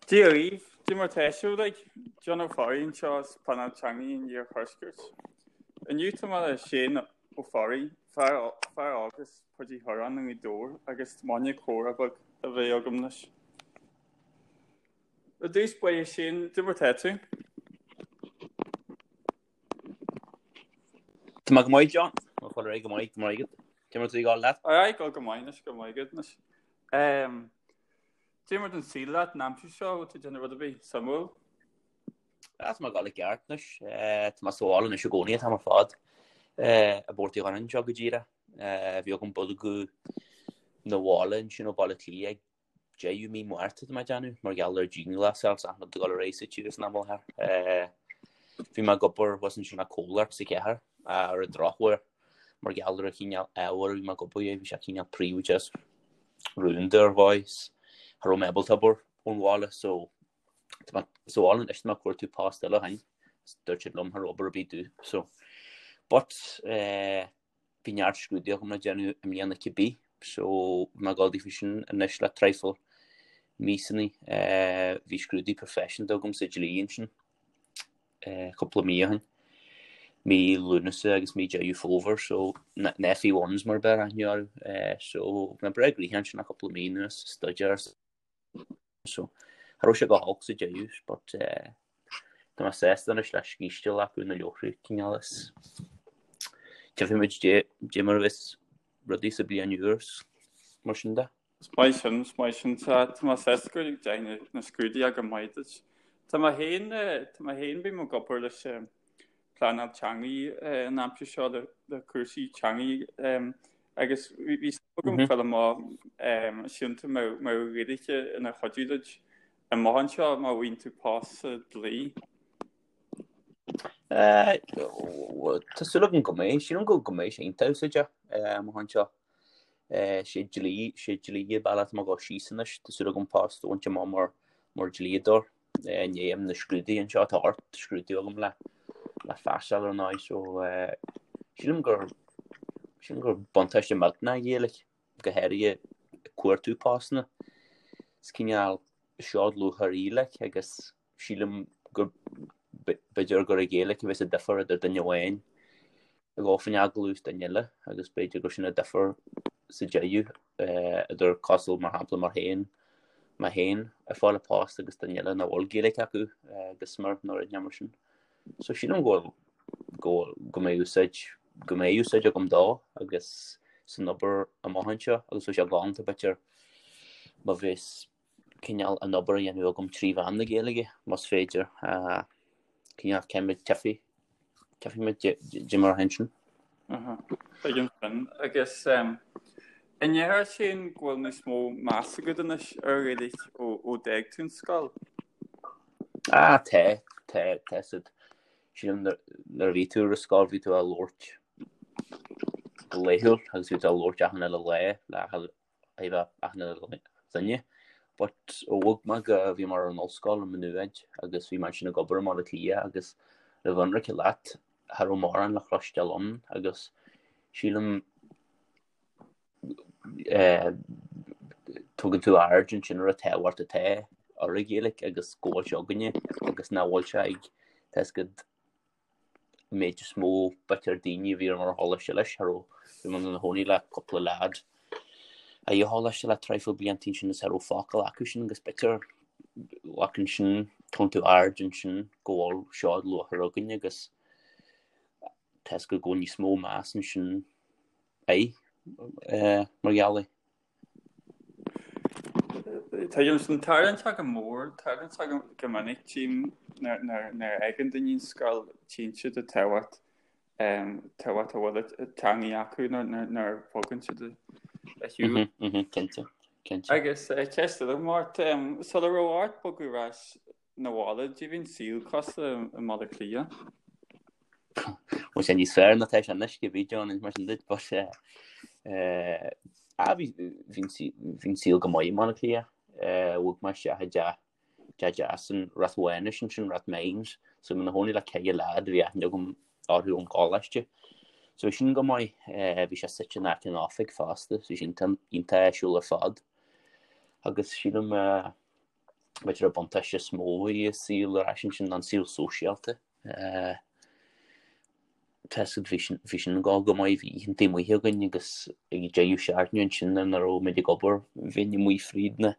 Dia dhaoibh, Cad é mar tá sibh uilig, John Ó Fearraigh anseo as Pleanáil Teanga an Iarthuaiscirt. Inniu tá mé le Shane Ó Fearraigh, fear óg as Páirc Uí Churráin i nGaoth Dobhair agus tá m'fháinne comhrá beag a bheith agam leis. I dtús báire Shane, cad é mar tá tú? Tá mé go maith John, Tá mé go maith, go maith agat. Cad é mar tá ag gabháil leat? Aye, ag gabháil go maith anois, go maith agat anois. Cad é mar tá an saol leat an aimsir seo, bhfuil tú ag déanamh rud ar bith suimiúil? Tá mé ag gabháil i gceart anois. Tá mé sa bhaile anois i gcónaí an t-am ar fad. I bPort Uí Dhoireáin anseo go díreach. Bhí agam bogadh 'na bhaile ansin ó Bhaile Átha Cliath ag deireadh mí Márta tá mé ag déanamh, mar gheall ar dianghlasáil is achan rud ag dul ar aghaidh sa tír san am i láthair. Bhí mé ag obair thuas ansin le comhlacht sa chathair ar an drochuair mar gheall ar an chineál ábhair a bhí mé ag obair air, bhí sé cineál príobháideach is rúnda ar dhóigh is cha raibh mé ábalta obair ón bhaile so tá mé sa bhaile anois tá mé ag cuartú post eile ó shin dúirt siad liom cha raibh obair ar bith domh so but eh, Bhí neart scrúduithe agam le déanamh i mbliana cibé, so bhí mé ag gabháil daofa sin anois le traidhfil míosanna. Bhí scrúdú proifisiúnta agam sa dlí ansin cúpla mí ó shin, mí Lúnasa agus mí Deireadh Fómhair, so na FE1s mar a b'fhearr aithne orthu. So bhí mé breá gnoitheach ansin le cúpla mí anuas, staidéar So, cha raibh sé go holc sa deireadh, but eh, tá mé sásta anois le scíste a ghlacadh na leabhartha cineál is tchífidh muid dé mar a bheas rudaí sa bliain úr is mar sin de. Is maith sin, is maith sin. Tá tá mé sásta go dteachaigh na scrúduithe go maith duit. Tá mé féin, tá mé féin, bím ag obair leis pleanáil teangaí an aimsir seo le cúrsaí teangaí agus bhí súil agam fáil amach síleann tú mbeadh an Ghaeilge ina chuidiú duit amach anseo má bhfaigheann tú post sa dlí. Tá súil agam go mbeidh, sílim go mbeidh sé iontach úsáideach amach anseo. Sé dlí, sé dlí an bealach atá mé ag dul síos anois, tá súil agam post a bhaint amach mar mar dlíodóir. I ndiaidh na scrúduithe anseo, tá 8 scrúdú agam le le phassáil ar ndóigh so sílim gur sílim gur buntáiste millteanach an Ghaeilge, go háirithe ag cuartú postanna. Is cineál seod lúcháir í like agus sílim gur b'fhéidir gur an Ghaeilge a bheas an difear idir duine amháin ag dul faoin agallamh is duine eile agus b'fhéidir gur sin an difear sa deireadh idir cosúil mar shampla mar féin, mé féin ag fáil an post agus duine eile nach bhfuil Gaeilge acu go smior nó rud mar sin. So sílim go bhfuil, go bhfuil, go mbeidh úsáid, go mbeidh úsáid agam dó agus san obair amach anseo agus bheadh sé galánta b'fhéidir má bheas cineál an obair a dhéanamh agam trí mheán na Gaeilge, más féidir. Cineál céimid tchífidh, tchífidh muid dé mar a théann sin. Tuigim sin. Agus an ndéarfá Shane go bhfuil níos mó meas agat anois ar Ghaeilge ó d'fhág tú an scoil? Ah, tá, tá, tá siad. Sílim nuair a bhí tú ar an scoil bhí tú á labhairt go laethúil agus bhí tú á labhairt achan uile lá le thaobh achan uile dhuine. But ó bhog mé go, bhí mé ar an ollscoil i Maigh Nuad agus bhí mé ansin ag obair i mBaile Átha Cliath agus le bheith ionraice leat, cha raibh mórán le chloisteáil ann agus sílim eh, tugann tú aird ansin ar an tábhacht atá ar an Ghaeilge agus go bhfuil sé againne agus nach bhfuil sé ag tá a fhios agat an méid is mó b'fhéidir daoine a bhí ar mar choláiste leis, cha raibh, bhí mé ina chónaí le cúpla leaid a bhí i choláiste le traidhfil blianta ansin is cha raibh focal acu sin agus b'fhéidir like ansin tugann tú aird ansin go bhfuil seod luachmhar againn agus tá a fhios agat go bhfuil níos mó meas ansin air mar gheall air. Tuigim sin. Tarlaíonn sé go mór, tarlaíonn sé go minic tchím nuair a fhágann daoine an scoil, tchíonn siad an tábhacht, tábhacht a bhfuil an teangaidh acu nuair a bhogann siad ar shiúl. Cinnte, cinnte. Agus ceist eile agam ort, sula raibh ort bogadh ar ais 'na bhaile, caidé bhí an saol cosúil i mBaile Átha Cliath. Bhfuil sé níos fearr ná tá sé anois go bhí John mar sin duit but eh ah bhí bhí bhí an saol go maith i mBaile Átha Cliath. Eh bhog mé isteach i dteach teach deas in Rath Mhánais ansin Rathmines so bhí mé ina chónaí le ceithre leaid a bhí aithne agam orthu ón gcoláiste. So bhí sin go maith eh bhí sé suite in aice an oifig fosta so bhí sin iontach áisiúil ar fad. Agus sílim eh. B'fhéidir an buntáiste is mó a bhí i saol ar ais ansin ná an saol sóisialta. Tá a fhios agat, bhí sin, bhí sin ag dul go maith, bhí oícheanta amuigh againn agus ag deireadh seachtaine ansin nuair nach raibh muid ag obair, bheinn amuigh fríd na,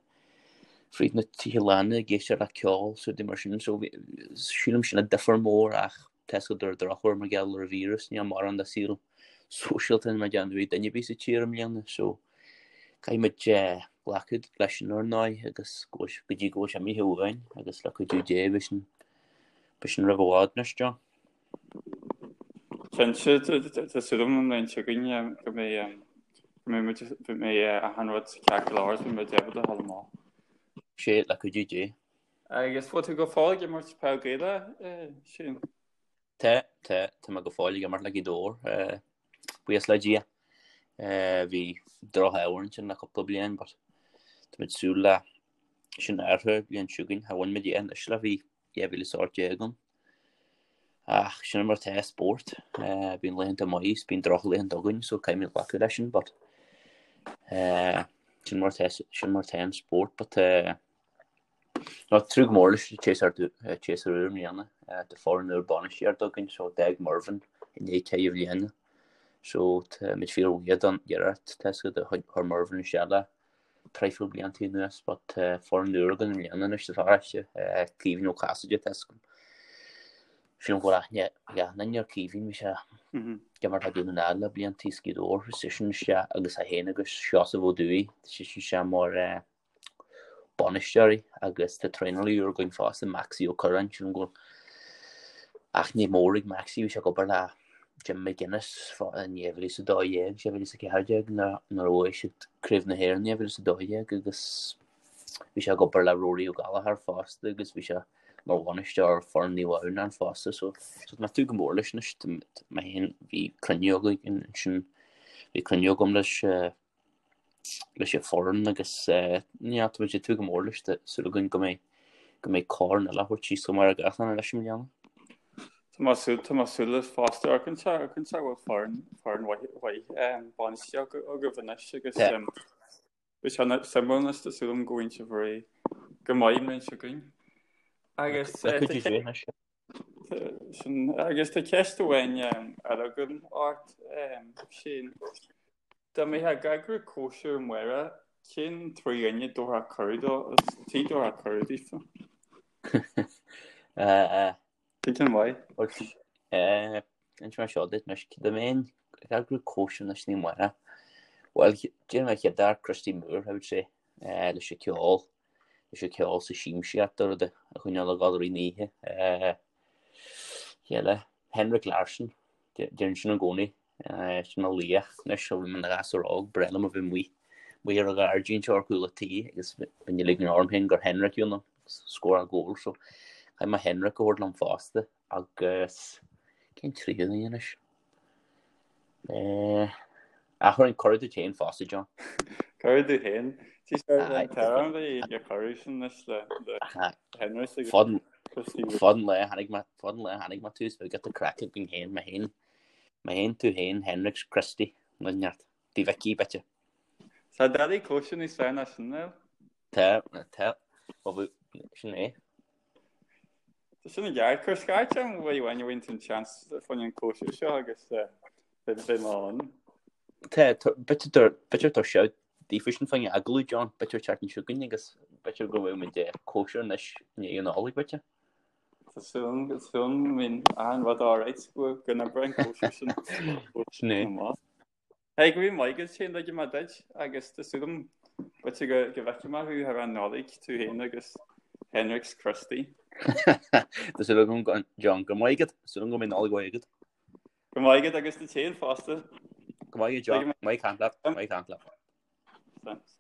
fríd na tithe lána ag éisteacht le ceol is rudaí mar sin. So bhí, sílim sin an difear mór ach tá a fhios agat ar an drochuair mar gheall ar an víreas, níl mórán de saol sóisialta mar déanamh ag duine ar bith sa tír i mbliana. So caithfidh muid glacadh leis sin ar ndóigh agus go dtí go bhfuil sé imithe uainn agus le cuidiú Dé beidh sin, beidh sin roimh i bhfad anois, John. Cinnte, tá súil agam an bhliain seo chugainn go mbeidh go mbeidh muid go mbeidh achan rud ceart go leor agus beidh muid ábalta a dhul amach. Sé, le cuidiú Dé. Agus bhfuil tú go fóill ag imirt peil Gaelach, Shane? Tá, tá, tá mé go fóill ag imirt le Gaoth Dobhair, buíochas le Dia. Bhí droch-ádh ansin le cúpla bliain but tá muid ag súil le sin a athrú an bhliain seo chugainn. Cha bhain muid é anois le bhí 2018 ann. Ach sin mar atá spórt, bíonn laethanta maith is bíonn drochlaethanta againn so caithfimid glacadh leis sin but sin mar atá, sin mar atá an spórt but Tá tnúth go mór leis an tséasúr úr i mbliana. Tá foireann úr bainistíochta againn so d'fhág Mervyn i ndiaidh ceithre bhliana. So tá muid fíor-bhuíoch don iarracht tá a fhios agat a chuir Mervyn isteach le traidhfil blianta anuas but tá foireann úr againn i mbliana anois sa pharóiste, Caoimhín Ó Casaide tá a fhios agam. Sílim go bhfuil aithne ag achan duine ar Caoimhín, bhí sé ag imirt le Dún na nGall le blianta is Gaoth Dobhair, tá seisean isteach agus é féin agus Seosamh Ó Dúill, tá seisean isteach mar bainisteoirí agus tá traenálaí úr againn fosta, Maxie Ó Curráin, sílim go bhfuil aithne mhór ag Maxie, bhí sé ag obair le Jim McGuinness in 2012, 2014 nuair a bhuaigh siad Craobh na hÉireann in 2012 agus bhí sé ag obair le Rory Ó Gallchóir fosta agus bhí sé mar bhainisteoir foireann Naomh Adhamhnáin fosta so tá mé ag tnúth go mór leis anois, mé féin bhí cruinniú againn ansin, bhí cruinniú agam leis leis an foireann agus yeah tá muid ag tnúth go mór leis tá súil againn go mbeidh go mbeidh corn eile a thabhairt síos chomh maith le gach duine leis i mbliana. Tá mé súil tá mé súil leis fosta ar cinnte ar cinnte go bhfuil foireann foireann mhaith mhaith bainistíocht agaibh anois agus beidh sé suimiúil anois tá súil agam go bhfaighidh sibh réidh go maith an bhliain seo chugainn. Agus Le cuidiú Dé anois. Sin, agus tá ceist amháin eile agam ort, Shane. Dá mbeifeá ag eagrú cóisir amárach, cén trí dhuine a dtabharfá cuireadh dó, tí dtabharfá cuireadh daofa? Cén ceann mhaith? Inseoidh mé seo duit anois, dá mbeinn ag eagrú cóisir anois ní amárach. Bhuel, déarfainn an chéad fhear, Christy Moore, I would say, leis an ceol. leis an ceol sa siamsaíocht a rud a choinneáil ag dul i rith na hoíche. Cé eile? Henrik Larsson, deirim sin i gcónaí. Sin mo laoch anois ó bhí mé ina ghasúr óg, ba bhreá liom a bheith amuigh amuigh ar an ghairdín seo ar chúl an tí agus bheinn ag ligean orm féin gur Henrik you know, scóráil gól so caithfidh mé Henrik a thabhairt liom fosta agus cén tríú duine anois? Ach chuirfinn cuireadh duit féin fosta, John. Cuireadh duit féin. Tá ar cuireadh sin anois le Henrik agus Christy. Fad an lae tháinig mé fad an lae tháinig mé tús bheith giota craic againn féin, mé féin, mé féin, tú féin, Henrik, Christy, nó neart. Tí Mhicí, b'fhéidir. Tá doiligh cóisir níos fearr ná sin, Niall. Tá, tá. Sin é. Tá sin i gceart. Cuir scairt orm uair amháin a bhfaigheann tú an seans fá choinne an cóisir seo agus beidh mé ann. Tá, b'fhéidir tá sé daofa sin fá choinne agallamh, John, b'fhéidir an tseachtain seo chugainn agus b'fhéidir go bhfuil muid ag cóisir anois i ndiaidh an Nollaig, b'fhéidir. Tá súil agam, tá súil agam go mbíonn achan rud alright go n-oibreoidh an cóisir sin. Sin é. Hey, go raibh maith agat Shane, ligfidh mé duit agus tá súil agam b'fhéidir go go bhfeicfidh mé thú thar an Nollaig, tú féin agus Henrik 's Christy. Tá súil agam John, go raibh maith agat, súil agam go mbeidh Nollaig mhaith agat. Go raibh maith agat agus duit féin fosta. Go maith agat John, maith caint leat, maith caint leat. Thanks.